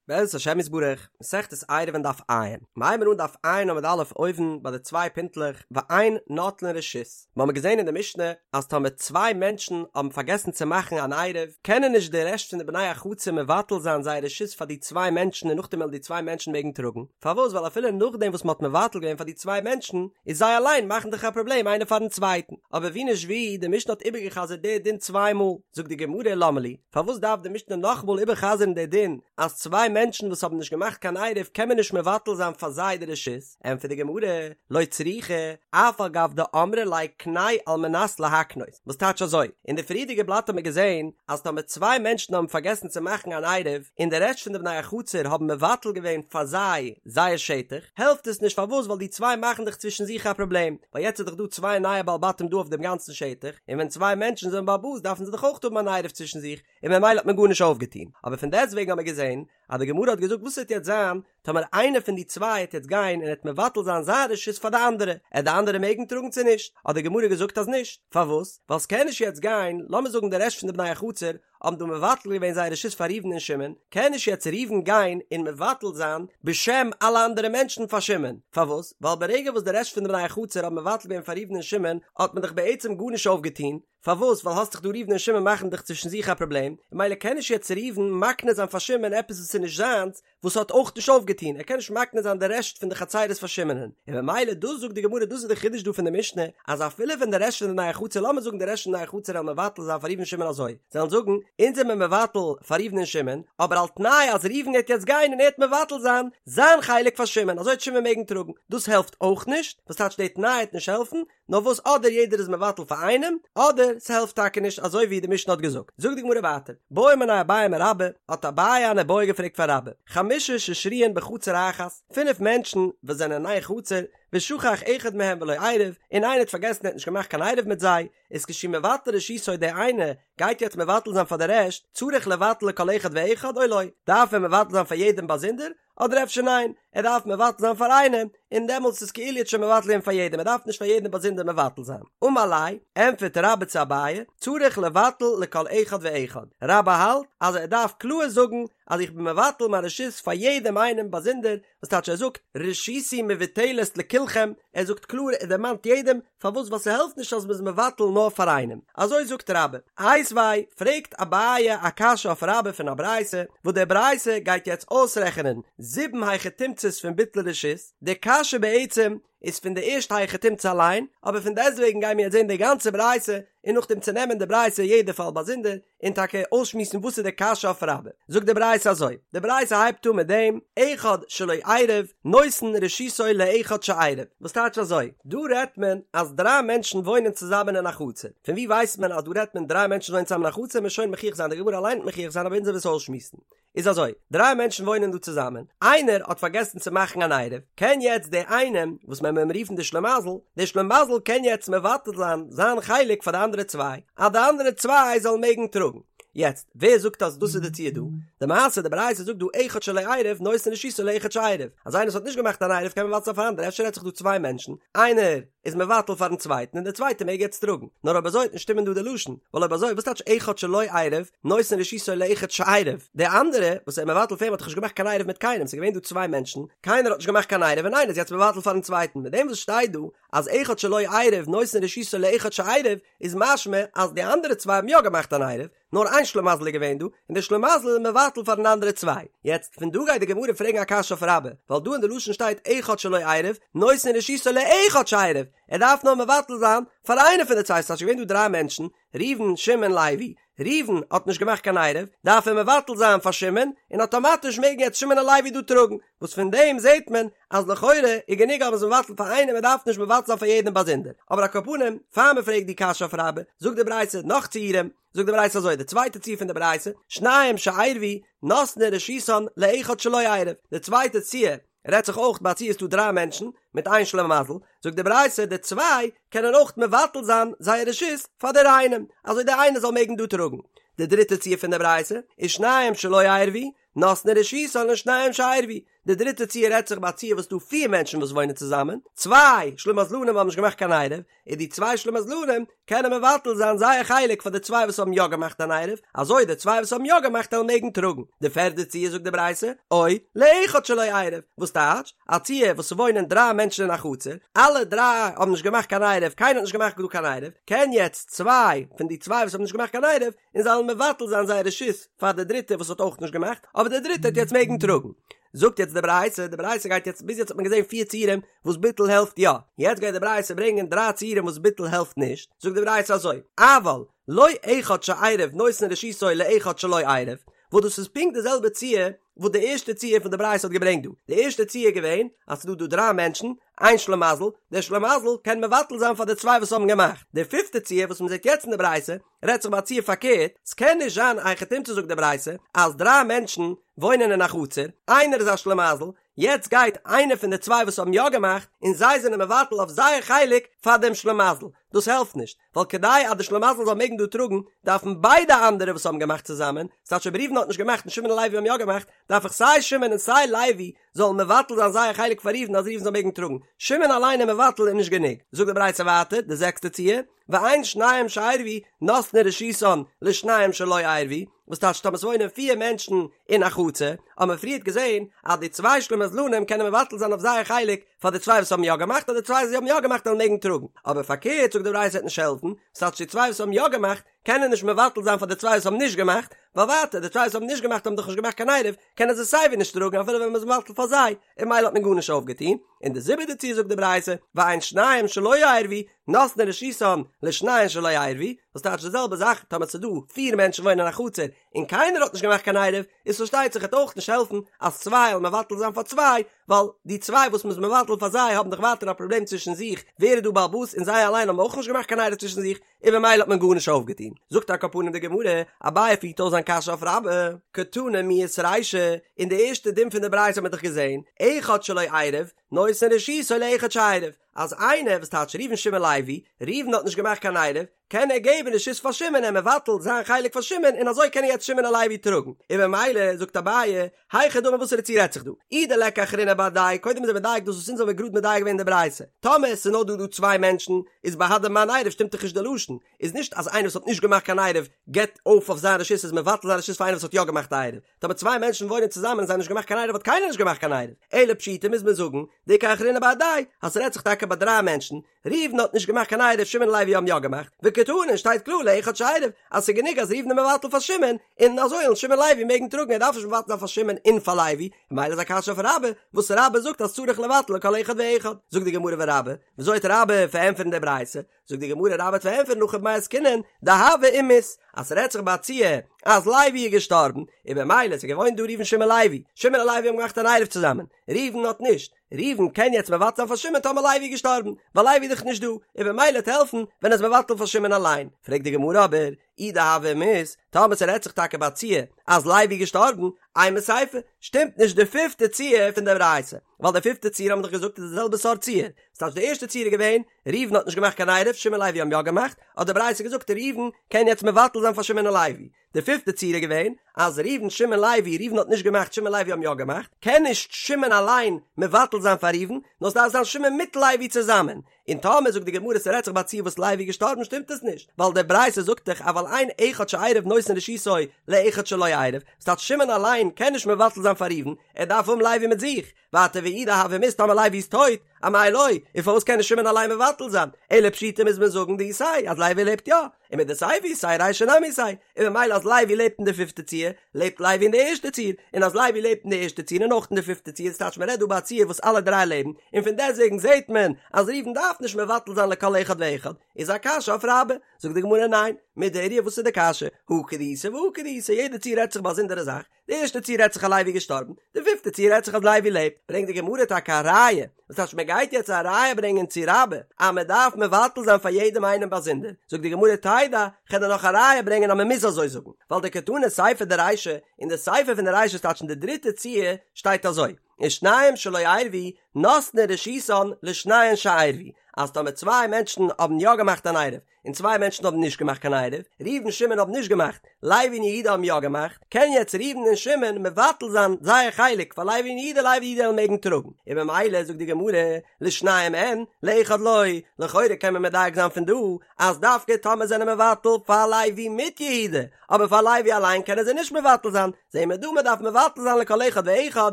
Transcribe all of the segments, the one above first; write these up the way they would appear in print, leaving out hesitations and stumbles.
בעזרת השם יתברך, מסכת עירובין דף ע', מ'הייבן אן דף ע' עמוד א' אויבן ביי די צוויי פינטלעך ואין נוטלין רשות, מ'האמיר געזען אין די משנה אז טאמער צוויי מענטשן האבן פארגעסן צו מאכן אן עירוב, קענען נישט די רעשט פון די בני החצר מבטל זיין זייער רשות פאר די צוויי מענטשן און נאכדעם וועלן די צוויי מענטשן מעגן טראגן, פארוואס ווייל אפילו נאכדעם וואס מ'האט מבטל געווען פאר די צוויי מענטשן, איז זיי אליין מאכן דאך א פראבלעם איינער פארן צווייטן, אבער ווי נישט ווי, די משנה האט איבערגע'חזר'ט די דין צוויי מאל, זאגט די גמרא למה לי, פארוואס דארף די משנה נאכאמאל איבער'חזר'ן די דין אז צוויי מענטשן וואס האבן נישט געמאכט קיין עירוב קען מען נישט מבטל זיין פאר זיי די רשות? ענטפערט די גמרא, לא צריכא, אף על גב דאמרי ליה קנה על מנת להקנות, וואס טייטש אזוי? אין די פריערדיגע בלאט האט מען געזען אז טאמער צוויי מענטשן האבן פארגעסן צו מאכן אן עירוב און די רעשט פון די בני החצר האבן מבטל געווען פאר זיי זייער שטח, העלפט עס נישט פארוואס ווייל די צוויי מאכן דאך צווישן זיך א פראבלעם, ווייל יעצט איז דאך דא צוויי נייע בעלי בתים דא אויף דעם גאנצן שטח, און ווען צוויי מענטשן זענען בעל הבית דארפן זיי דאך אויך האבן אן עירוב צווישן זיך, און ממילא האט מען גארנישט אויפגעטון. אבער פון דעסטוועגן האט מען געזען אז די גמרא האט געזאגט וואס וועט יעצט זיין טאמער איינער פון די צוויי העט יעצט גיין און העט מבטל זיין זיין רשות פאר די אנדערע, עט די אנדערע מעגן טראגן צו נישט? האט די גמרא געזאגט אז נישט. פארוואס? ווייל ס'קען נישט יעצט גיין, לאמיר זאגן די רעשט פון די בני החצר האבן דא מבטל געווען זייער רשות פאר ראובן און שמעון, קען נישט יעצט ראובן גיין און מבטל זיין בשם אלע אנדערע מענטשן פאר שמעון, פארוואס? ווייל ברגע וואס די רעשט פון די בני החצר האבן מבטל געווען פאר ראובן און שמעון האט מען דאך בעצם גארנישט אויפגעטון, פארוואס? ווייל האסט דאך דא ראובן און שמעון מאכן דאך צווישן זיך א פראבלעם, און ממילא קען נישט יעצט ראובן מקנה זיין פאר שמעון עפעס וואס איז נישט זיינס, וואס האט אויך נישט אויפגעטון, ער קען נישט מקנה זיין די רעשט פון די חצירות פאר שמעונ'ען, און ממילא דאס זאגט די גמרא דאס איז די חידוש דא פון די משנה, אז אפילו ווען די רעשט פון די בני החצר לאמיר זאגן די רעשט פון די בני החצר וועלן מבטל זיין פאר ראובן שמעון אזוי, זיי וועלן זאגן, אונז זעמיר מבטל פאר ראובן און שמעון, אבער על תנאי אז ראובן גייט יעצט גיין און ער וועט מבטל זיין זיין חלק פאר שמעון, אזוי וועט שמעון מעגן טראגן, דאס העלפט אויך נישט, וואס טייטש די תנאי וועט נישט העלפן, נאר וואס אדער יעדער איז מבטל פאר איינעם, אדער ס'העלפט טאקע נישט אזוי ווי די משנה האט געזאגט. זאגט די גמרא ווייטער, בעא מיניה אביי מרבה, האט אביי אן איבעיא געפרעגט פאר רבה, חמשה ששרויין בחצר אחת, פינף מענטשן וואס זענען אין איין חצר, ושכח אחד מהם ולא עירב, און איינער האט פארגעסן ער האט נישט געמאכט קיין עירוב מיט זיי, איז כשהוא מבטל רשותו דער איינער גייט יעצט מבטל זיין פאר די רעשט, צריך לבטל לכל אחד ואחד או לא, דארף ער מבטל זיין פאר יעדעם באזונדער, אדער אפשר ניין, ער דארף מבטל זיין פאר איינעם, און דעמאלטס איז כאילו ער האט שוין מבטל געווען פאר יעדעם, ער דארף נישט פאר יעדעם באזונדער מבטל זיין. אמר ליה, ענטפערט רבה צו אביי, צריך לבטל לכל אחד ואחד, רבה האלט אז ער דארף קלאר זאגן אז איך בין מבטל מיין רשות פאר יעדעם איינעם באזונדער, וואס טייטש ער זאגט רשותי מבוטלת לכולכם, ער זאגט קלאר ער דערמאנט יעדעם, פארוואס ווייל ס'העלפט נישט אז מ'איז מבטל נאר פאר איינעם, אזוי זאגט רבה. איתיביה, פרעגט אביי א קשיא אויף רבה פון א ברייתא, וואס די ברייתא גייט יעצט אויסרעכענען זיבן היכי תמצא'ס פון ביטול רשות, די קשיא בעצם איז פון די ערשטע היכי תמצא אליין, אבער פון דעסטוועגן גייען מיר יעצט זען די גאנצע ברייתא, און נאכדעם צונעמען די ברייתא יעדע פאל באזונדער, און טאקע אויסשמועסן וואס איז די קשיא אויף רבה. זאגט די ברייתא אזוי, די ברייתא הייבט אן מיט דעם, אחד שלא עירב, נותן רשותו לאחד שעירב, וואס טייטש אזוי, דא רעדט מען אז דריי מענטשן וואוינען צוזאמען אין א חצר, פון וואו ווייסט מען אז דא רעדט מען דריי מענטשן וואוינען צוזאמען אין א חצר, מ'עט שוין מוכיח זיין, די גמרא אליין וועט מוכיח זיין אבער אונז וועלן עס אויסשמועסן. איז אזוי, דריי מענטשן וואוינען דא צוזאמען, איינער האט פארגעסן צו מאכן אן עירוב, קען יעצט דער איינעם, וואס מען וועט אים רופן די שלימזל, דער שלימזל קען יעצט מבטל זיין זיין חלק פאר די אנדערע צוויי, אז די אנדערע צוויי זאלן מעגן טראגן. יעצט, ווער זאגט אז דאס איז די ציור דא? די מעשה, די ברייתא זאגט דא אחד שלא עירב נותן רשותו לאחד שעירב, אז איינער וואס האט נישט געמאכט אן עירוב קען מבטל זיין פאר אנדערע, אפשר רעדט זיך דא צוויי מענטשן, איינער איז מבטל פארן צווייטן און דער צווייטער מעג יעצט טראגן. נאר אויב אזוי וועט נישט שטימען דא די לשון, ווייל אויב אזוי וואס טייטש אחד שלא עירב נותן רשותו לאחד שעירב? דער אנדערע וואס ער איז מבטל פאר אים האט דאך נישט געמאכט קיין עירוב מיט קיינעם, ס'איז געווען דא צוויי מענטשן, קיינער האט נישט געמאכט קיין עירוב און איינער איז יעצט מבטל פארן צווייטן, מיט דעם וואס שטייט דא אז אחד שלא עירב נותן רשותו לאחד שעירב איז משמע אז די אנדערע צוויי האבן יא געמאכט אן עירוב, נאר איין שלימזל איז געווען דא, און דער שלימזל איז מבטל פארן אנדערע צוויי. יעצט, פון דא גייט די גמרא פרעגן א קשיא אויף רבה, ווייל דא אין די לשון שטייט אחד שלא עירב, נותן רשותו לאחד שעירב, ער דארף נאר מבטל זיין פאר איינער פון די צוויי, ס'טייטש געווען דא דריי מענטשן, ראובן, שמעון, לוי, ראובן האט נישט געמאכט קיין עירוב, דארף ער מבטל זיין פאר שמעון, און אטאמאטיש מעגן יעצט שמעון און לוי דא טראגן, וואס פון דעם זעט מען אז לכאורה איז גענוג אז מ'איז מבטל פאר איינעם מען דארף נישט מבטל זיין פאר יעדעם באזונדער, אבער על כל פנים, פאר מ'פרעגט די קשיא אויף רבה, זאגט די ברייתא נאך ציורים, זאגט די ברייתא אזוי, די צווייטע ציור פון די ברייתא, שניים שעירבו נותנין רשותן לאחד שלא עירב, די צווייטע ציור רעדט זיך אויך ביי א ציור ס'דא דריי מענטשן מיט איין שלימזל, זאגט די ברייתא די צוויי קענען אויך מבטל זיין זייער רשות פאר דער איינעם, אזוי דער איינער זאל מעגן דא טראגן. די דריטע ציור פון די ברייתא איז שניים שלא עירבו. נותנין רשותן לשניים שעירבו, די דריטע ציור רעדט זיך ביי א ציור וואס ס'דא פיר מענטשן וואס וואוינען צוזאמען, צוויי שלימזלנים האבן נישט געמאכט קיין עירוב, און די צוויי שלימזלנים קענען מבטל זיין זייער חלק פאר די צוויי וואס האבן יא געמאכט אן עירוב, אזוי די צוויי וואס האבן יא געמאכט וועלן מעגן טראגן. די פערדע ציור זאגט די ברייתא, או לאחד שלא עירב, וואס טייטש, א ציור וואס ס'וואוינען דריי מענטשן אין א חצר, אלע דריי האבן נישט געמאכט קיין עירוב, קיינער האט נישט געמאכט דא קיין עירוב, קען יעצט צוויי פון די צוויי וואס האבן נישט געמאכט קיין עירוב, און זיי וועלן מבטל זיין זייער רשות פאר די דריטע וואס האט אויך נישט געמאכט, אבער די דריטע וועט יעצט מעגן טראגן. זאגט יעצט די ברייתא, די ברייתא גייט יעצט, ביז יעצט האט מען געזען פיר ציורים וואס ביטול העלפט יא, יעצט גייט די ברייתא ברענגען דריי ציורים וואס ביטול העלפט נישט, זאגט די ברייתא אזוי, אבל לא אחד שעירב נותן רשותו לאחד שלא עירב, וואס דאס איז פונקט די זעלבע ציור וואס די ערשטע ציור פון די ברייתא האט געברענגט דא, די ערשטע ציור איז געווען אז ס'איז דא דא דריי מענטשן, איין שלימזל, דער שלימזל קען מבטל זיין פאר די צוויי וואס האבן געמאכט, די פיפטע ציור וואס מ'זעט יעצט אין די ברייתא, רעדט זיך ביי א ציור פארקערט, ס'קען נישט זיין א היכי תמצא זאגט די ברייתא אז דריי מענטשן וואוינען אין א חצר, איינער איז א שלימזל, יעצט גייט איינער פון די צוויי וואס האבן יא געמאכט און זיי זענען מבטל אויף זייער חלק פאר דעם שלימזל, דאס העלפט נישט, ווייל כדי אז די שלימזל זאל מעגן דא טראגן דארפן ביידע אנדערע וואס האבן געמאכט צוזאמען, ס'טייטש אויב ראובן האט נישט געמאכט און שמעון און לוי האבן יא געמאכט, דארף איך סיי שמעון און סיי לוי זאלן מבטל זיין זייער חלק פאר ראובן אז ראובן זאל מעגן טראגן, שמעון אליין איז מבטל איז נישט גענוג, זאגט די ברייתא ווייטער, די זעקסטע ציור, ואין שניים שעירבו נותנין רשותן לשניים שלא עירבו, וואס טייטש טאמער ס'וואוינען פיר מענטשן אין א חצר, האבן מיר פריערט געזען אז די צוויי שלימזלנים קענען מבטל זיין אויף זייער חלק פאר די צוויי וואס האבן יא געמאכט אז די צוויי וואס האבן יא געמאכט וועלן מעגן טראגן, אבער פארקערט זאגט די ברייתא וועט נישט העלפן, וואס טייטש די צוויי וואס האבן יא געמאכט קענען נישט מבטל זיין פאר די צוויי וואס האבן נישט געמאכט, ווייל ווייטער די צוויי וואס האבן נישט געמאכט האבן דאך נישט געמאכט קיין עירוב, קענען זיי סייווי נישט טראגן אפילו ווען מ'איז מבטל פאר זיי, און ממילא האט מען גארנישט אויפגעטון, און די זיבעטע ציור זאגט די ברייתא, ואין שניים שלא עירבו, נותנין רשותן לשניים שלא עירבו, וואס טייטש די זעלבע זאך, טאמער ס'איז דא פיר מענטשן וואוינען אין א חצר, און קיינער האט נישט געמאכט קיין עירוב, איז פארשטייט זיך וועט אויך נישט העלפן אז צוויי זאלן מבטל זיין פאר צוויי, ווייל די צוויי וואס מ'איז מבטל פאר זיי האבן דאך ווייטער א פראבלעם צווישן זיך ווער איז דא בעל הבית און זיי אליין האבן אויך נישט געמאכט קיין עירוב צווישן זיך, און במילא האט מען גארנישט אויפגעטון. זאגט על כל פנים די גמרא, אביי פירט אויס זיין קשיא אויף רבה, קתני מיהת רישא, אין די ערשטע דין פון די ברייתא האט מען דאך געזען, אחד שלא עירב, נותן רשותו לאחד שעירב, אז איינער, וואס טייטש ראובן שמעון לוי, ראובן האט נישט געמאכט קיין עירוב, קען ער געבן רשות פאר שמעון ער מבטל זיין חלק פאר שמעון און אזוי קענען יעצט שמעון און לוי טראגן, און במילא זאגט אביי, היכי דמי וואסערע ציור רעדט זיך דא? אי דליכא אחרינא בהדייהו, קודם איז ער מדייק דאס וואס אונז האבן גראד מדייק געווען אין די ברייתא, טאמער עס איז נאר דא דא צוויי מענטשן, איז בהדי מאן עירב שטימט דאך נישט די לשון, איז נישט אז איינער וואס האט נישט געמאכט קיין עירוב געבט אויף אויף זיין רשות איז מבטל זיין רשות פאר איינער וואס האט יא געמאכט א עירוב, טאמער צוויי מענטשן וואוינען צוזאמען און זיי האבן נישט געמאכט קיין עירוב האט קיינער נישט געמאכט קיין עירוב, אלא פשיטא מוז מען זאגן דאיכא אחרינא בהדייהו אז ס'רעדט זיך טאקע ביי דריי מענטשן, ראובן האט נישט געמאכט קיין עירוב שמעון און לוי האבן יא געמאכט, וקתני שטייט קלאר לאחד שעירב אז ס'איז גענוג אז ראובן איז מבטל פאר שמעון, און אזוי וועלן שמעון און לוי מעגן טראגן ער דארף נישט מבטל זיין פאר שמעון און פאר לוי, ממילא איז א קשיא אויף רבה, וואס רבה זאגט אז צריך לבטל לכל אחד ואחד, זאגט די גמרא ורבה, וויאזוי וועט רבה פארענטפערן די ברייתא? זאגט די גמרא רבה וועט פארענטפערן הכא במאי עסקינן דהוה ומית, אז ס'רעדט זיך ביי א ציור אז לוי איז געשטארבן, און במילא ס'איז געוואוינט דא ראובן שמעון לוי, שמעון און לוי האבן געמאכט אן עירוב צוזאמען, ראובן האט נישט, ראובן קען יעצט מבטל זיין פאר שמעון טאמער לוי איז געשטארבן, ווייל לוי איז דאך נישט דא, און במילא וועט העלפן ווען ער איז מבטל פאר שמעון אליין. פרעגט די גמרא אבער, אי דהוה ומית, טאמער ס'רעדט זיך טאקע ביי א ציור אז לוי איז געשטארבן, אימא סיפא, שטימט נישט די פיפטע ציור פון די ברייתא, ווייל די פיפטע ציור האבן מיר דאך געזאגט איז די זעלבע סארט ציור, ס'טייטש די ערשטע ציור איז געווען, ראובן האט נישט געמאכט קיין עירוב, שמעון לוי האבן יא געמאכט, האט די ברייתא געזאגט ראובן קען יעצט מבטל זיין פאר שמעון און לוי, די פיפטע ציור איז געווען אז ראובן שמעון לוי, ראובן האט נישט געמאכט שמעון לוי האבן יא געמאכט, קען נישט שמעון אליין מבטל זיין פאר ראובן, נאר ס'דארף זיין שמעון מיט לוי צוזאמען, און טאמער זאגט די גמרא ס'רעדט זיך ביי א ציור וואס לוי איז געשטארבן שטימט עס נישט, ווייל די ברייתא זאגט דאך אבל אין אחד שעירב נותן רשותו לאחד שלא עירב, ס'טייטש שמעון אליין קען נישט מבטל זיין פאר ראובן, ער דארף האבן לוי מיט זיך, ווייטער ואי דהוה ומית טאמער לוי איז טויט, אמאי לא, און פארוואס קען נישט שמעון אליין מבטל זיין? אלא פשיטא מוז מען זאגן דאיתיה אז לוי לעבט יא, ומדסיפא איתיה רישא נמי איתיה, און ממילא אז לוי לעבט אין די פיפטע ציור, לעבט לוי אין די ערשטע ציור, און אז לוי לעבט אין די ערשטע ציור און אויך אין די פיפטע ציור, ס'טייטש מ'רעדט דא ביי א ציור וואס אלע דריי לעבן, און פון דעסטוועגן זעט מען אז ראובן דארף נישט מבטל זיין לכל אחד ואחד, איז א קשיא אויף רבה, זאגט די גמרא ניין, מידי איריא וואס איז די קשיא? הא כדאיתא והא כדאיתא, יעדע ציור רעדט זיך באזונדערע זאך, די ערשטע ציור רעדט זיך אז לוי איז געשטארבן, די פיפטע ציור רעדט זיך אז לוי לעבט, ברענגט די גמרא טאקע א ראיה, וואס טייטש מען גייט יעצט א ראיה ברענגען צו רבה אז מען דארף מבטל זיין פאר יעדעם איינעם באזונדער, זאגט די גמרא תדע, כ'על דיר נאך א ראיה ברענגען אז מען מוז אזוי זאגן, ווייל דקתני סיפא דרישא, אין די סיפא פון די רישא ס'טייטש אין די דריטע ציור שטייט אזוי, ושניים שלא עירבו. נותנין רשותן לשניהם שעירבו, אז טאמער צוויי מענטשן האבן יא געמאכט אן עירוב, און צוויי מענטשן האבן נישט געמאכט קיין עירוב, ראובן שמעון האבן נישט געמאכט, לוי און יהודה האבן יא געמאכט, קען יעצט ראובן און שמעון מבטל זיין זייער חלק פאר לוי און יהודה, לוי און יהודה וועלן מעגן טראגן, און במילא זאגט די גמרא, לשניהם אין, לאחד לא, לכאורה קען מען מדייק זיין פון דא, אז דווקא טאמער זענען מבטל פאר לוי מיט יהודה, אבער פאר לוי אליין קענען זיי נישט מבטל זיין, זעהן מיר דא מען דארף מבטל זיין לכל אחד ואחד,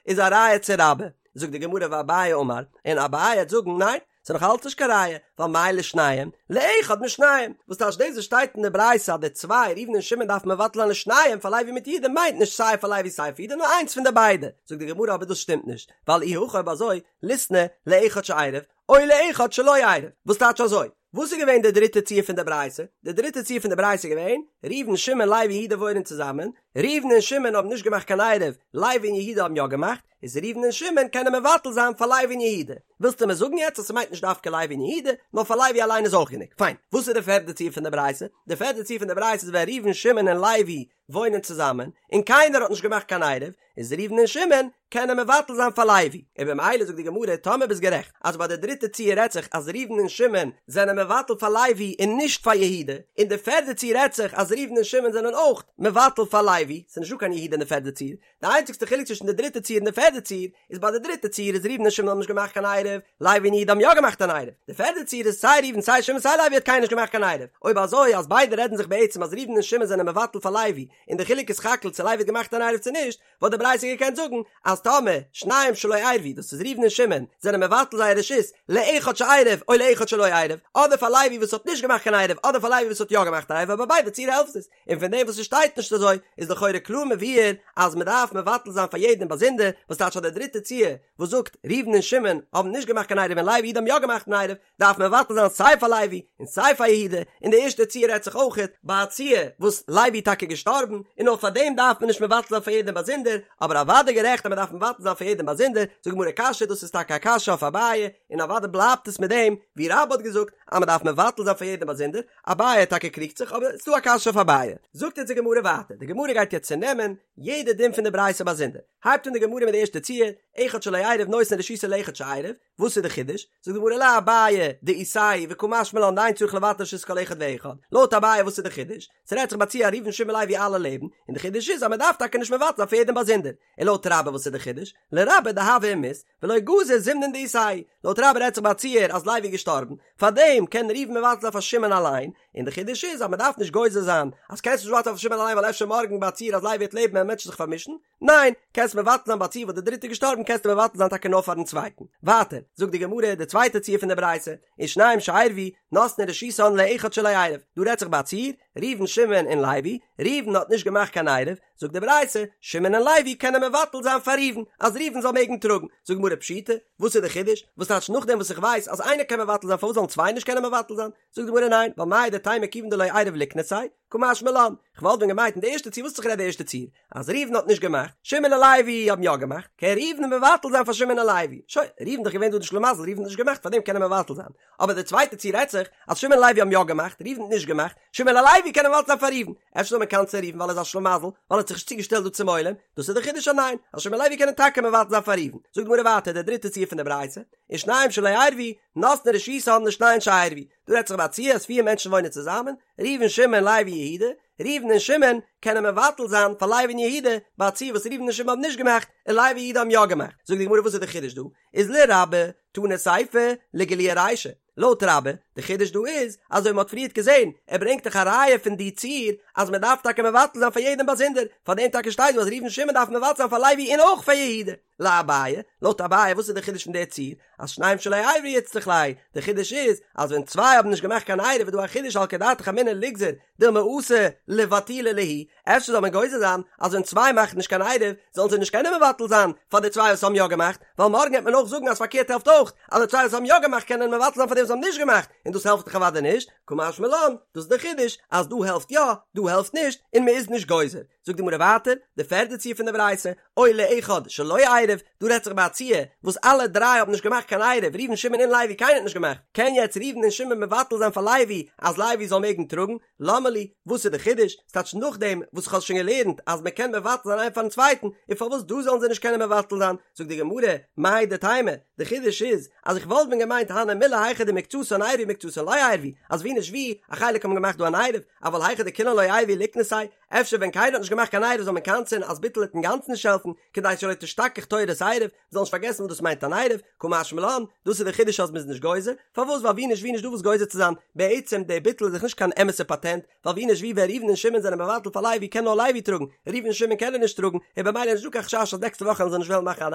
איז א ראיה צו רבה. זאגט די גמרא ואביי אמר, און אביי וועט זאגן ניין, ס'איז נאך אלץ נישט קיין ראיה, ווייל מאי לשניהם, לאחד משניהם, וואס טייטש דאס וואס שטייט אין די ברייתא אז די צוויי, ראובן און שמעון דארפן מבטל זיין לשניהם פאר לוי מיט יהודה מיינט נישט סיי פאר לוי סיי פאר יהודה נאר איינס פון די ביידע, זאגט די גמרא אבער דאס שטימט נישט, ווייל אי הכי אויב אזוי, ליתני לאחד שעירב, או לאחד שלא עירב, וואס טייטש אזוי? וואס איז געווען די דריטע ציור פון די ברייתא? די דריטע ציור פון די ברייתא איז געווען, ראובן, שמעון, לוי און יהודה וואוינען צוזאמען, ראובן און שמעון האבן נישט געמאכט קיין עירוב, לוי און יהודה האבן יא געמאכט, איז ראובן און שמעון קענען מבטל זיין פאר לוי און יהודה. ווילסטו מיר זאגן יעצט אז ס'מיינט נישט דווקא לוי און יהודה, נאר פאר לוי אליין איז אויך גענוג? פיין. וואס איז די פערדע ציור פון די ברייתא? די פערדע ציור פון די ברייתא איז ווען ראובן, שמעון און לוי וואוינען צוזאמען, און קיינער האט נישט געמאכט קיין עירוב, איז ראובן און שמעון קענען מבטל זיין פאר לוי, און במילא זאגט די גמרא טאמער ביסט גערעכט אז ביי די דריטע ציור רעדט זיך אז ראובן און שמעון זענען מבטל פאר לוי און נישט פאר יהודה, און די פערדע ציור רעדט זיך אז ראובן און שמעון זענען אויך מבטל פאר לוי, ס'איז נישטא קיין יהודה אין די פערדע ציור, די איינציגסטע חילוק צווישן די דריטע ציור און די פערדע ציור איז ביי די דריטע ציור איז ראובן און שמעון האבן נישט געמאכט קיין עירוב, לוי און יהודה האבן יא געמאכט אן עירוב, די פערדע ציור איז סיי ראובן סיי שמעון סיי לוי האט קיינער נישט געמאכט קיין עירוב, אויב אזוי אז ביידע רעדן זיך בעצם אז ראובן און שמעון זענען מבטל פאר לוי און די חילוק איז סך הכל צו לוי האט געמאכט אן עירוב צו נישט, וואלט די ברייתא געקענט זאגן אז טאמער שניים שלא עירבו דאס איז ראובן און שמעון זענען מבטל זייער רשות לאחד שעירב או לאחד שלא עירב, אדער פאר לוי וואס האט נישט געמאכט קיין עירוב אדער פאר לוי וואס האט יא געמאכט א עירוב אבער ביי ביידע ציור העלפט עס, און פון דעם וואס עס שטייט נישט אזוי איז לכאורה קלאר מבואר אז מען דארף מבטל זיין פאר יעדעם באזונדער, וואס טייטש אז די דריטע ציור וואס זאגט ראובן און שמעון האבן נישט געמאכט קיין עירוב און לוי יהודה האבן יא געמאכט אן עירוב, דארף מען מבטל זיין סיי פאר לוי און סיי פאר יהודה, און די ערשטע ציור רעדט זיך אויכעט ביי א ציור וואס לוי איז טאקע געשטארבן, און נאר פאר דעם דארף מען נישט מבטל זיין פאר יעדעם באזונדער, אבער אוודאי גערעכט אז מען דארף מבטל זיין פאר יעדעם באזונדער, זאגט די גמרא קשיא דאס איז טאקע א קשיא אויף אביי, און אוודאי בלייבט עס מיט דעם ווי רבה האט געזאגט אז מען דארף מבטל זיין פאר יעדעם באזונדער, אביי טאקע קריגט זיך אבער ס'דא א קשיא אויף אביי. זאגט אונז די גמרא ווייטער, די גמרא גייט יעצט צונעמען יעדע דין פון די ברייתא באזונדער, הייבט אן די גמרא מיט די ערשטע ציור, אחד שלא עירב נותן רשותו לאחד שעירב, וואס איז די חידוש? זאגט די גמרא לאביי דאיתייהו וקא משמע לן דאין צריך לבטל רשות כל אחד ואחד, לויט אביי וואס איז די חידוש? ס'רעדט זיך ביי א ציור ראובן שמעון לוי אלע לעבן, און די חידוש איז אז מ'דארף טאקע נישט מבטל זיין פאר יעדעם באזונדער, און לויט רבה וואס איז די חידוש? לרבה דהוה ומית ולא גזר זימנין דאיתייהו, לויט רבה רעדט זיך ביי א ציור אז לוי איז געשטארבן, פארדעם קען ראובן מבטל זיין פאר שמעון אליין, און די חידוש איז אז מ'דארף נישט גוזר זיין אז קענסט נישט מבטל זיין פאר שמעון אליין ווייל אפשר מארגן ביי א ציור אז לוי וועט לעבן וועלן מענטשן זיך פארמישן, ניין, קענסט מבטל זיין ביי א ציור וואס די דריטע איז געשטארבן קענסטו מבטל זיין טאקע נאר פארן צווייטן. ווייטער, זאגט די גמרא די צווייטע ציור פון די ברייתא, ושניים שעירבו, נותנין רשותן לאחד שלא עירב, דא רעדט זיך ביי א ציור, ראובן שמעון און לוי, ראובן האט נישט געמאכט קיין עירוב, זאגט די ברייתא, שמעון און לוי קענען מבטל זיין פאר ראובן, אז ראובן זאל מעגן טראגן, זאגט די גמרא פשיטא, וואס איז די חידוש? וואס טייטש נאכדעם וואס איך ווייס אז איינער קען מבטל זיין פארוואס זאלן צוויי נישט קענען מבטל זיין? זאגט די גמרא ניין, ווייל מהו דתימא כיוון דלא עירב ליקנסיה, קא משמע לן, כ'וואלט ווען געמיינט אין די ערשטע ציור וואס האט זיך גערעדט די ערשטע ציור? אז ראובן האט נישט געמאכט, שמעון און לוי האבן יא געמאכט, קען ראובן מבטל זיין פאר שמעון און לוי, שוין, ראובן איז דאך געווען דא די שלימזל, ראובן האט נישט געמאכט פארדעם קען ער מבטל זיין, אבער די צווייטע ציור רעדט זיך אז שמעון און לוי האבן יא געמאכט, ראובן האט נישט געמאכט, שמעון און לוי קענען מבטל זיין פאר ראובן, אפשר זאל מען קנס'ען ראובן ווייל ער איז א שלימזל, ווייל ער האט זיך נישט צוגעשטעלט דא צום עולם, דאס איז די חידוש אז ניין, אז שמעון און לוי קענען טאקע מבטל זיין פאר ראובן, זאגט די גמרא ווייטער די דריטע ציור פון די ברייתא, ושניים שלא עירבו, נותנין רשותן לשניים שעירבו, דא רעדט זיך ביי א ציור אז פיר מענטשן וואוינען צוזאמען, ראובן שמעון לוי יהודה, ראובן און שמעון קענען מבטל זיין פאר לוי און יהודה ביי א ציור וואס ראובן און שמעון האבן נישט געמאכט און לוי און יהודה האבן יא געמאכט. זאגט די גמרא וואס איז די חידוש דא? איז לרבה תנא סיפא לגלויי רישא. לויט רבה, די חידוש דא איז, אזוי ווי מען האט פריערט געזען, ער ברענגט דאך א ראיה פון די ציור אז מען דארף טאקע מבטל זיין פאר יעדעם באזונדער, פאר דעם טאקע שטייט דא אז ראובן און שמעון דארפן מבטל זיין פאר לוי און אויך פאר יהודה. לאביי, לויט אביי וואס איז די חידוש פון די ציור? אז שניים שלא עירבו איצטריך ליה, די חידוש איז אז ווען צוויי האבן נישט געמאכט קיין עירוב איז דא א חידוש סלקא דעתך אמינא ליגזור דילמא אתי לבטולי להו, אפשר זאל מען גוזר זיין אז ווען צוויי מאכן נישט קיין עירוב זאלן זיי נישט קענען מבטל זיין פאר די צוויי וואס האבן יא געמאכט, ווייל מארגן וועט מען אויך זאגן אז פארקערט העלפט אויך, אז די צוויי וואס האבן יא געמאכט קענען מבטל זיין פאר די וואס האבן נישט געמאכט. און דאס העלפט דאך אוודאי נישט, קא משמע לן, דאס איז דער חידוש, אז דא העלפט יא, דא העלפט נישט, און מען איז נישט גוזר. זאגט די גמרא ווייטער, די פערדע ציור פון די ברייתא, או לאחד שלא עירב, דא רעדט זיך ביי א ציור וואס אלע דריי האבן נישט געמאכט קיין עירוב, ראובן שמעון און לוי קיינער האט נישט געמאכט, קען יעצט ראובן און שמעון מבטל זיין פאר לוי אז לוי זאל מעגן טראגן? למה לי, וואס איז די חידוש? ס'טייטש נאכדעם וואס איך האב שוין געלערנט אז מען קען מבטל זיין איינער פארן צווייטן, און פארוואס דא זאלן זיי נישט קענען מבטל זיין? זאגט די גמרא, מהו דתימא, די חידוש איז אז איך וואלט ווען געמיינט הני מילי היכא דמקצתן עירבו מקצתן לא עירבו, אז ווי נישט ווי, א חלק האבן געמאכט דא אן עירוב, אבל היכא דכולן לא עירבו ליקנסיה, אפשר ווען קיינער האט נישט געמאכט קיין עירוב זאל מען קנס'ען אז ביטול וועט אינגאנצן נישט העלפן, כדי שלא תשתכח תורת עירוב, מ'זאל נישט פארגעסן וואס דאס מיינט אן עירוב, קא משמע לן, דאס איז די חידוש אז מ'איז נישט גוזר, פארוואס ווייל ווי נישט ווי נישט דא וואס גוזר צו זיין, בעצם די ביטול איז דאך נישט קיין אמת'ע פאטענט, ווייל ווי נישט ווי ווען ראובן און שמעון זענען מבטל פאר לוי קען נאר לוי טראגן, ראובן און שמעון קענען נישט טראגן, און במילא איז נישט דא קיין חשש אז נעקסטע וואך וועלן זיי נישט וועלן מאכן אן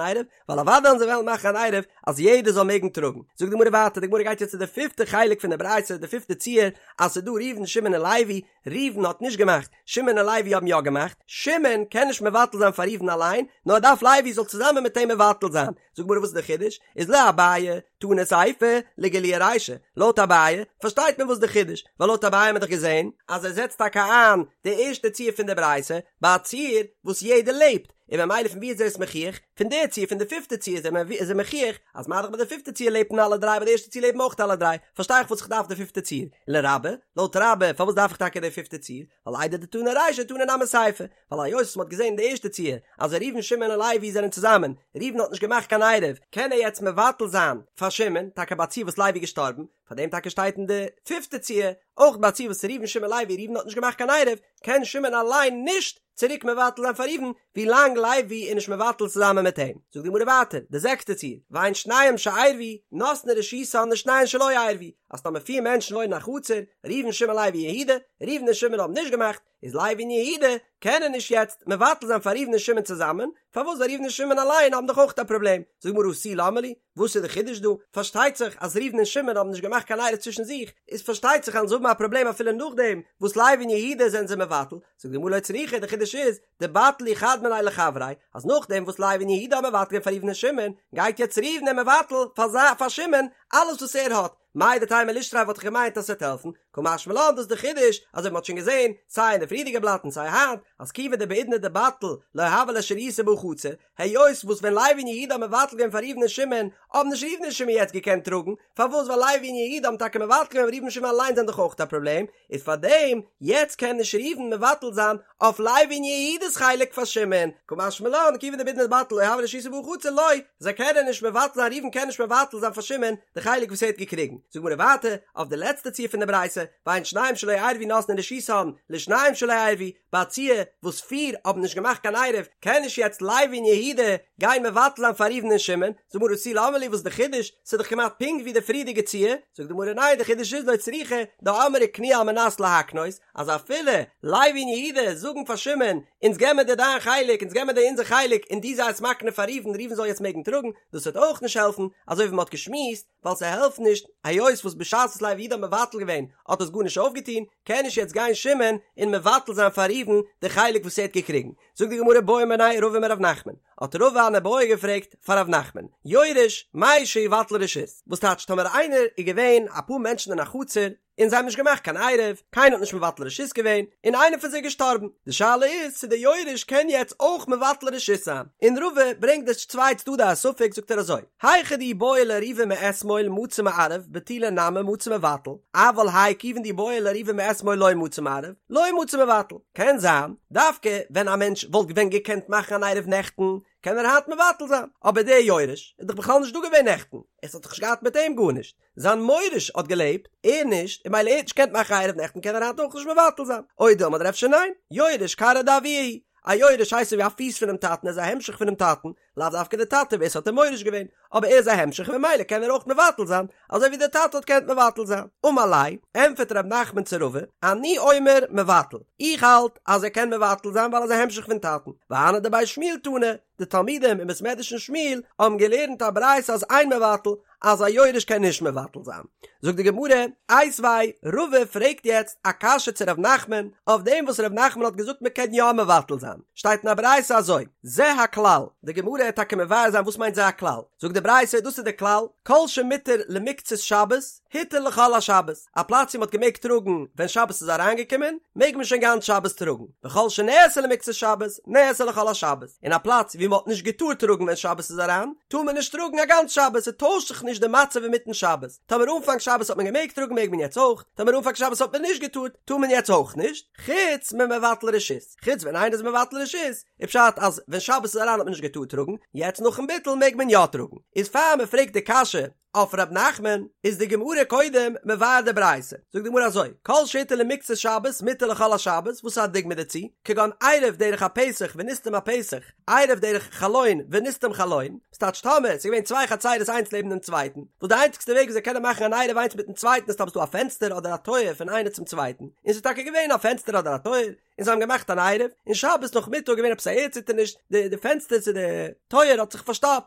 עירוב, ווייל אוודאי וועלן זיי וועלן מאכן אן עירוב אז יעדער זאל מעגן טראגן. זאגט די גמרא ווייטער, די גמרא גייט יעצט צו די פיפטע חלק פון די ברייתא, די פיפטע ציור, אז ס'איז דא ראובן שמעון און לוי, ראובן האט נישט געמאכט, שמעון און לוי האבן יא געמאכט, שמעון קען נישט מבטל זיין פאר ראובן אליין, נאר ער דארף לוי זאל צוזאמען מיט אים מבטל זיין. זאגט גמרא וואס איז די חידוש? איז לאביי, תנא סיפא, לגלויי רישא, לויט אביי פארשטייט מען וואס די חידוש, ווייל לויט אביי האט מען דאך געזען אז ער זעצט טאקע איין די ערשטע ציור פון די ברייתא ביי א ציור וואס יעדער לעבט, און ממילא פון ווי איז ער עס מוכיח? פון די ציור, פון די פיפטע ציור איז ער מוכיח אז מה דאך ביי די פיפטע ציור לעבן אלע דריי ביי די ערשטע ציור לעבן אויך אלע דריי, פארשטיי איך וואס איך דארף די פיפטע ציור. לרבה, לויט רבה, פארוואס דארף איך טאקע די פיפטע ציור? ווייל איידי דתנא רישא תנא נמי סיפא, ווייל היות וואס מ'האט געזען אין די ערשטע ציור אז ראובן שמעון און לוי זענען צוזאמען, ראובן האט נישט געמאכט קיין עירוב, קען ער יעצט מבטל זיין פאר שמעון, טאקע ביי א ציור וואס לוי איז געשטארבן, פאר דעם טאקע שטייט אין די פיפטע ציור, אויך ביי א ציור וואס ראובן שמעון לוי, ראובן האט נישט געמאכט קיין עירוב, קען שמעון אליין נישט צוריק מבטל זיין פאר ראובן, ווי לאנג לוי איז נישט מבטל צוזאמען מיט אים. זאגט די גמרא ווייטער, די זעקסטע ציור, והן שניהם שעירבו, נותנין רשותן לשניהם שלא עירבו, אז טאמער פיר מענטשן וואוינען אין א חצר, ראובן שמעון לוי יהודה, ראובן און שמעון האבן נישט געמאכט, איז לוי און יהודה קענען נישט יעצט מבטל זיין פאר ראובן און שמעון צוזאמען, פארוואס ווייל ראובן און שמעון אליין האבן דאך אויך א פראבלעם, זאגט די גמרא הא תו למה לי, וואס איז די חידוש דא? פארשטייט זיך אז ראובן און שמעון האבן נישט געמאכט קיין עירוב צווישן זיך, איז פארשטייט זיך אז זיי האבן א פראבלעם אפילו נאכדעם וואס לוי און יהודה זענען זיי מבטל, זאגט די גמרא לא צריכא, די חידוש איז, דבטלו חד מינייהו לחבריה, אז נאכדעם וואס לוי און יהודה האבן מבטל געווען פאר ראובן און שמעון, גייט יעצט ראובן און מבטל פאר פאר שמעון אלעס וואס ער האט, מהו דתימא לישתריה וואלט איך געמיינט אז ס'וועט העלפן, קא משמע לן דאס איז די חידוש, אזוי ווי מ'האט שוין געזען סיי אין די פריערדיגע בלאט און סיי היינט, אז כיוון דבעידנא דבטיל לא הוה ליה שריותא בהא חצר, היות וואס ווען לוי און יהודה האבן מבטל געווען פאר ראובן און שמעון, האבן נישט ראובן און שמעון יעצט געקענט טראגן, פארוואס ווייל לוי און יהודה האבן טאקע מבטל געווען אבער ראובן און שמעון אליינס זענען דאך אויך א פראבלעם, איז פארדעם יעצט קען נישט ראובן מבטל זיין אויף לוי און יהודה'ס חלק פאר שמעון, קא משמע לן כיוון דבעידנא דבטיל לא הוה ליה שריותא בהא חצר לא, זיי קענען נישט מבטל זיין ראובן קען נישט מבטל זיין פאר שמעון די חלק וואס ער האט געקריגן, זאגט גמרא ווייטער אויף די לעצטע ציור פון די ברייתא, והן שניים שלא עירבו נותנין רשותן לשניים שלא עירבו, ביי א ציור וואס פיר האבן נישט געמאכט קיין עירוב, קען נישט יעצט לוי און יהודה גיין מבטל זיין פאר ראובן און שמעון, זאגט די גמרא הא תו למה לי וואס איז די חידוש, ס'איז דאך כמעט פונקט ווי די פריערדיגע ציור, זאגט די גמרא ניין די חידוש איז לא צריכא דאמרי קנו על מנת להקנות, אז אפילו לוי און יהודה זאגן פאר שמעון אונז געבן מיר דיר דיין חלק אונז געבן מיר דיר אונזער חלק און דו זיי עס מקנה פאר ראובן ראובן זאל יעצט מעגן טראגן, דאס וועט אויך נישט העלפן, אזוי ווי מ'האט געשמועסט, ווייל ס'העלפט נישט, היות וואס בשעת וואס לוי ויהודה האבן מבטל געווען האט עס גארנישט אויפגעטון, קען נישט יעצט גיין שמעון און מבטל זיין פאר ראובן די חלק וואס ער האט געקריגן. זאגט די גמרא בעא מיניה רבא מרב נחמן, האט רבא אן איבעיא געפרעגט פאר רב נחמן, יורש, מהו שיבטל רשות, וואס טייטש טאמער איינער איז געווען אפאר מענטשן אין א חצר און זיי האבן נישט געמאכט קיין עירוב, קיינער האט נישט מבטל רשות געווען, און איינער פון זיי איז געשטארבן, די שאלה איז צו דער יורש קען יעצט אויך מבטל רשות זיין, און רבא ברענגט די צוויי צדדי הספק זאגט ער אזוי, היכא דאי בעי לערובי מאתמול מצי מערב בטולי נמי מצי מבטל, אבל האי כיוון דאי בעי לערובי מאתמול לא מצי מערב, לא מצי מבטל, קען זיין דווקא ווען א מענטש וואלט ווען געקענט מאכן אן עירוב נעכטן, קען ער היינט מבטל זיין, אבער דער יורש איז דאך בכלל נישט דא געווען נעכטן, עס האט דאך נישט געהאט מיט אים גארנישט, זיין מוריש האט געלעבט, ער נישט, און ממילא ער האט נישט געקענט מאכן עירוב נעכטן קען ער היינט אויך נישט מבטל זיין. או דילמא אדער אפשר ניין, יורש כרעא דאבוה הוא, א יורש הייסט אזוי ווי א פיס פונעם טאטן ער איז א המשך פונעם טאטן, לאו דווקא די טאטע ווער ס'האט אים מוריש געווען, אבער ער איז א המשך און ממילא קען ער אויך מבטל זיין, אזוי ווי דער טאטע האט געקענט מבטל זיין. אמר ליה, ענטפערט ר' נחמן צו רבא, אני אומר מבטל, איך האלט אז ער קען מבטל זיין ווייל ער איז א המשך פון טאטן, והני דבי שמואל תנו, די תלמידים אין בית מדרש פון שמואל האבן געלערנט א ברייתא אז אין מבטל, אז א יורש קען נישט מבטל זיין. זאגט די גמרא, איתיביה, רבא פרעגט יעצט א קשיא צו ר' נחמן, אויף דעם וואס ר' נחמן האט געזאגט מען קען יא מבטל זיין, שטייט אין א ברייתא אזוי, זה הכלל, די גמרא וועט טאקע מבאר זיין וואס מיינט זה הכלל, זאגט די ברייתא דאס איז די כלל, כל שמותר למקצת שבת. הותר לכל השבת, א פלאץ ווי מ'האט געמעגט טראגן ווען שבת איז אריינגעקומען, מעג מען שוין גאנץ שבת טראגן, וכל שנאסר למקצת שבת, נאסר לכל השבת, און א פלאץ ווי מ'האט נישט געטארט טראגן ווען שבת איז אריין, טאר מען נישט טראגן א גאנץ שבת, ס'טוישט זיך נישט די מצב אינמיטן שבת, טאמער אנפאנג שבת האט מען געמעגט טראגן מעג מען יעצט אויך, טאמער אנפאנג שבת האט מען נישט געטארט, טאר מען יעצט אויך נישט, חוץ ממבטל רשות, חוץ ווען איינער איז מבטל רשות, איז פשט אז ווען שבת איז אריין האט מען נישט געטארט טראגן, יעצט נאכן ביטול מעג מען יא טראגן, איז פאר מ'פרעגט די קשיא אויף ר' נחמן איז די גמרא קודם מבאר די ברייתא, זאגט די גמרא אזוי, כל שהותר למקצת שבת מותר לכל השבת, וואס איז א דוגמא דערצו, כגון עירב דרך הפתח ונסתם הפתח, עירב דרך חלון ונסתם חלון, ס'טייטש טאמער ס'איז געווען צוויי חצירות איינס לעבן דעם צווייטן, וואס די איינציגסטע וועג ווי זיי קענען מאכן אן עירוב איינס מיטן צווייטן איז טאמער ס'איז דא א פענסטער אדער א טויער פון איינער צום צווייטן, און ס'איז טאקע געווען א פענסטער אדער א טויער, און זיי האבן געמאכט אן עירוב, און שבת נאכמיטאג געווען עפעס א ערדציטערניש, די די פענסטער צו די טויער האט זיך פארשטאפט,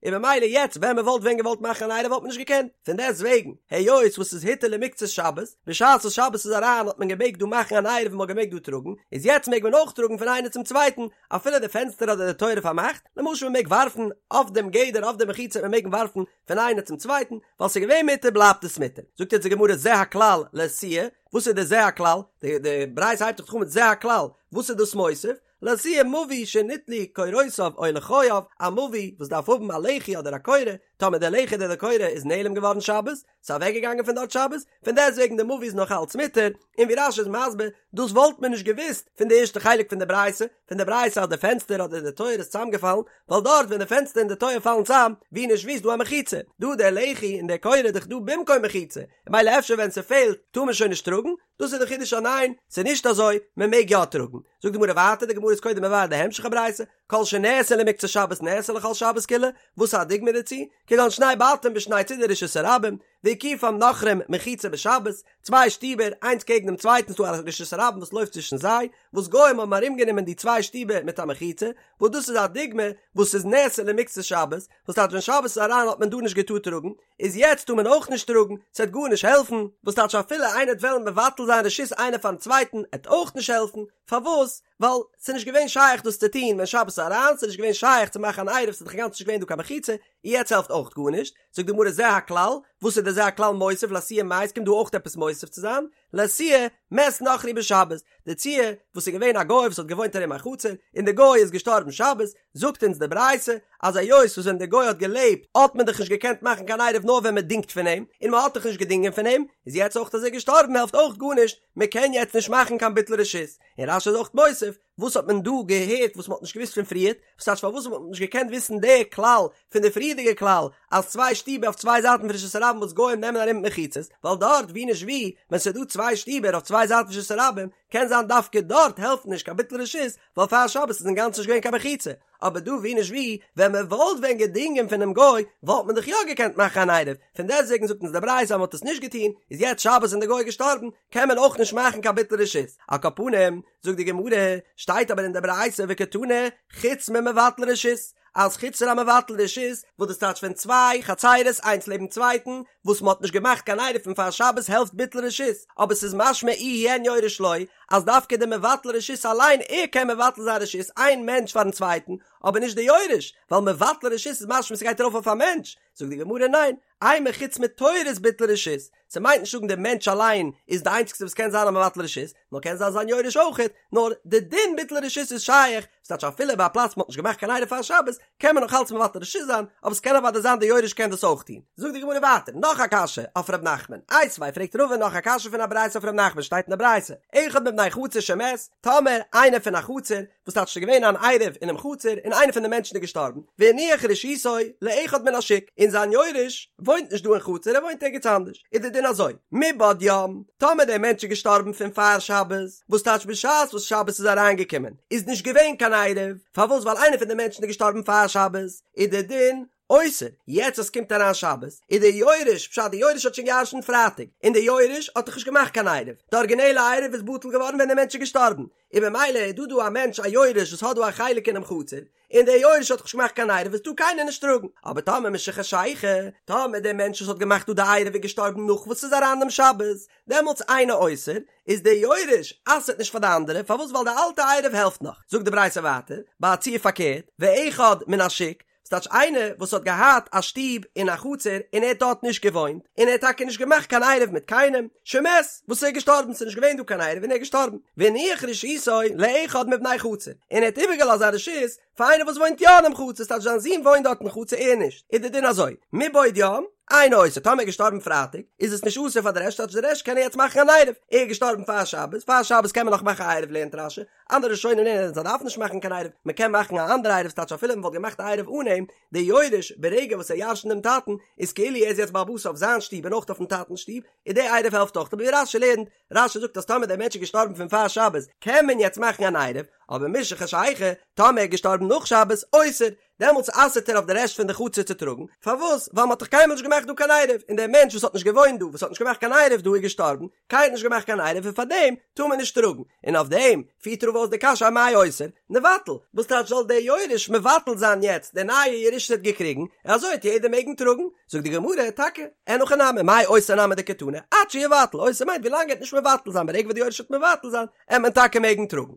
און במילא יעצט ווען מען וואלט ווען געוואלט מאכן אן עירוב וואלט מען נישט געקענט, פון דעסט וועגן, היות וואס ס'איז הותר למקצת שבת, בשעת וואס שבת איז אריין האט מען געמעגט דא מאכן אן עירוב און מ'האט געמעגט דא טראגן, איז יעצט מעג מען אויך טראגן פון איינער צום צווייטן, אפילו די פענסטער אדער די טויער איז פארמאכט, למשל מען מעג ווארפן אויף דעם גדר אויף די מחיצה מען מעג ווארפן פון איינער צום צווייטן, ווייל ס'איז געווען מותר בלייבט עס מותר. זאגט יעצט די גמרא זה הכלל לאתויי, וואס איז די זה הכלל? די די ברייתא הייבט זיך אן מיט זה הכלל, וואס איז דאס מוסיף? לאתויי מבוי שניטלו קורותיו או לחייו, א מבוי וואס דארף האבן א לחי אדער א קורה, טאמער די לחי אדער די קורה איז נעלם געווארן שבת, ס'איז אוועק געגאנגען פון דארט שבת, פון דעסטוועגן די מבוי איז נאך אלץ מותר, און ווי רש"י איז מסביר, דאס וואלט מען נישט געוואוסט פון די ערשטע חלק פון די ברייתא, פון די ברייתא אז די פענסטער אדער די טויער איז צוזאמגעפאלן, ווייל דארט ווען די פענסטער און די טויער פאלן צאם, ווי נישט ווי איז דא א מחיצה, דא די לחי און די קורה איז דאך דא במקום מחיצה, ממילא אפשר ווען ס'פעלט טאר מען שוין נישט טראגן, דאס איז די חידוש אז ניין, ס'איז נישט אזוי, מען מעג יא טראגן. זאגט די גמרא ווייטער, די גמרא איז קודם מבאר די המשך הברייתא, כל שנאסר למקצת שבת נאסר לכל שבת כולה, וואס איז א דוגמא דערצו? כגון שני בתים בשני צידי רשות הרבים, והקיפום נכרים מחיצה בשבת, צוויי שטיבער איינס קעגן דעם צווייטן ס'דא א רשות הרבים וואס לויפט צווישן זיי, וואס גוים האבן ארומגענומען די צוויי שטיבער מיט א מחיצה, וואס דאס איז א דוגמא וואס איז נאסר למקצת שבת, וואס טייטש ווען שבת איז אריין האט מען דא נישט געטארט טראגן, איז יעצט טאר מען אויך נישט טראגן, ס'עט גארנישט העלפן, וואס טייטש אפילו איינער עט וועלן מבטל זיין רשות איינער פארן צווייטן עט אויך נישט העלפן, פארוואס? ווייל ס'איז נישט געווען שייך דאס צו טון ווען שבת איז אריין, ס'איז נישט געווען שייך צו מאכן אן עירוב, ס'איז דאך אינגאנצן נישט געווען דא קיין מחיצה, און יעצט העלפט אויך גארנישט, זאגט די גמרא זה הכלל, וואס איז די זה הכלל מוסיף לאתויי מאי, ס'קומט דא אויך עפעס מוסיף צו זיין, לאתויי מת נכרי בשבת, די ציור וואס איז געווען א גוי וואס האט געוואוינט ארום א חצר, און די גוי איז געשטארבן שבת, זאגט אונז די ברייתא, אז היות וואס ווען די גוי האט געלעבט האט מען דאך נישט געקענט מאכן קיין עירוב נאר ווען מען דינגט פון אים, און מען האט דאך נישט געדינגען פון אים, איז יעצט אויך אז ער איז געשטארבן העלפט אויך גארנישט, מען קען יעצט נישט מאכן קיין ביטול רשות, און רש"י איז אויך מוסיף, וואס האט מען דא געהערט וואס מען האט נישט געוואוסט פון פריערט? וואס טייטש פארוואס האט מען נישט געקענט וויסן די כלל פון די פריערדיגע כלל אז צוויי שטיבער אויף צוויי זייטן פון רשות הרבים וואס גוים נעמען ארום מיט מחיצות, ווייל דארט ווי נישט ווי ווען ס'איז דא צוויי שטיבער אויף צוויי זייטן פון רשות הרבים קען זיין דווקא דארט העלפט נישט קיין ביטול רשות ווייל פאר שבת איז אינגאנצן נישט געווען קיין מחיצה, אבער דא ווי נישט ווי ווען מען וואלט ווען געדינגען פונעם גוי וואלט מען דאך יא געקענט מאכן אן עירוב, פון דעסטוועגן זאגט אונז די ברייתא אז מען האט עס נישט געטון איז יעצט שבת און די גוי איז געשטארבן קען מען אויך נישט מאכן קיין ביטול רשות, על כל פנים זאגט די גמרא, שטייט אבער אין די ברייתא וקתני, חוץ ממבטל רשות, אז חוץ פון א מבטל רשות, וואס דאס טייטש ווען צוויי חצירות איינס לעבן צווייטן, וואס מען האט נישט געמאכט קיין עירוב פון פאר שבת העלפט ביטול רשות, אבער ס'איז משמע איהו אין יורש לא, אז דווקא דער מבטל רשות אליין ער קען מבטל זיין רשות איין מענטש פארן צווייטן, אבער נישט די יורש, ווייל מבטל רשות איז משמע ס'גייט ארויף אויף א מענטש, זאגט די גמרא ניין, אימא חוץ מתורת ביטול רשות, ס'מיינט נישט זאגן דער מענטש אליין איז די איינציגסטע וואס קען זיין א מבטל רשות, נאר קען זיין זיין יורש אויכעט, נאר די דין ביטול רשות איז שייך, ס'טייטש אפילו ביי א פלאץ מ'האט נישט געמאכט קיין עירוב פאר שבת, קען מען נאך אלץ מבטל רשות זיין, אבער ס'קען אוודאי זיין די יורש קען דאס אויך טון. זאגט די גמרא ווייטער, נאך א קשיא אויף ר' נחמן, איתיביה פרעגט רבא נאך א קשיא פון א ברייתא אויף ר' נחמן שטייט אין די ברייתא, אחד מבני חצר שמת, טאמער איינער פון א חצר, וואס טייטש ס'איז געווען אן עירוב אינעם חצר און איינער פון די מענטשן איז געשטארבן, והניח רשותו לאחד מן השוק, און זיין יורש וואוינט נישט דא אין חצר ער וואוינט ערגעץ אנדערש, איז די דין אזוי, מבעוד יום, טאמער דער מענטש איז געשטארבן פון פאר שבת, וואס טייטש בשעת וואס שבת איז אריינגעקומען איז נישט געווען קיין עירוב, פארוואס ווייל איינער פון די מענטשן איז געשטארבן פאר שבת, איז די דין אוסר, יעצט אז ס'קומט אריין שבת, איז דער יורש, פשט די יורש האט שוין געירשנט פרייטאג, און דער יורש האט דאך נישט געמאכט קיין עירוב, די ארגינעלע עירוב איז בטל געווארן ווען דער מענטש איז געשטארבן, און במילא איז דא דא א מענטש א יורש וואס האט דא א חלק אינעם חצר, און דער יורש האט דאך נישט געמאכט קיין עירוב איז טאר קיינער נישט טראגן, אבער טאמער משחשיכה, טאמער דער מענטש וואס האט געמאכט דא די עירוב איז געשטארבן נאך וואס ס'איז אריין דעם שבת, דעמאלטס אינו אוסר, איז דער יורש אסר'ט נישט פאר די אנדערע, פארוואס ווייל די אלטע עירוב העלפט נאך, זאגט די ברייתא ווייטער, ביי א ציור פארקערט, ואחד מן השוק, ס'טייטש איינער וואס האט געהאט א שטוב אין א חצר און ער האט דארט נישט געוואוינט, און ער האט טאקע נישט געמאכט קיין עירוב מיט קיינעם, שמת, וואס ער איז געשטארבן, ס'איז נישט געווען דא קיין עירוב און ער איז געשטארבן, והניח רשותו לאחד מבני חצר, און ער האט איבערגעלאזט זיין רשות פאר איינער וואס וואוינט יא אינעם חצר, ס'טייטש זיין זון וואוינט דארט אין חצר ער נישט, איז די דין אזוי, מבעוד יום, אינו אוסר, טאמער ער איז געשטארבן פרייטאג, איז עס נישט אסור פאר די רעשט, ס'טייטש די רעשט קענען יעצט מאכן אן עירוב, ער איז געשטארבן פאר שבת, פאר שבת קען מען נאך מאכן א עירוב לערנט רש"י, אנדערע ראשונים לערנען אז מ'דארף נישט מאכן קיין עירוב, מען קען מאכן א אנדערע עירוב ס'טייטש אפילו מען וואלט געמאכט א עירוב אן אים, דער יורש ברגע וואס ער ירש'נט דעם טאטן איז כאילו ער איז יעצט בעל הבית אויף זיין שטוב און אויך אויפן טאטנ'ס שטוב, און דער עירוב העלפט אויך, אבער ווי רש"י לערנט, רש"י זאגט אז טאמער דער מענטש איז געשטארבן פון פאר שבת קען מען יעצט מאכן אן עירוב, אבער משחשיכה, טאמער ער איז געשטארבן נאך שבת, אוסר, דעמאלטס אסר'ט ער אויף די רעשט פון די חצר צו טראגן, פארוואס? ווייל מ'האט דאך קיינמאל נישט געמאכט דא קיין עירוב, און דער מענטש וואס האט נישט געוואוינט דא, וואס האט נישט געמאכט קיין עירוב דא איז געשטארבן, קיינער האט נישט געמאכט קיין עירוב און פארדעם טאר מען נישט טראגן, און אויף דעם פירט רבא אויס די קשיא אמאי אוסר, ניבטל, וואס טייטש זאל דער יורש מבטל זיין יעצט די נייע ירושה וואס ער האט געקריגן, און אזוי וועט יעדער מעגן טראגן, זאגט די גמרא, טאקע, אין הכי נמי, מאי אוסר נמי דקתני, עד שיבטל, אוסר מיינט ווילאנג ער וועט נישט מבטל זיין, ברגע וואס די יורש וועט מבטל זיין, עט מען טאקע מעגן טראגן.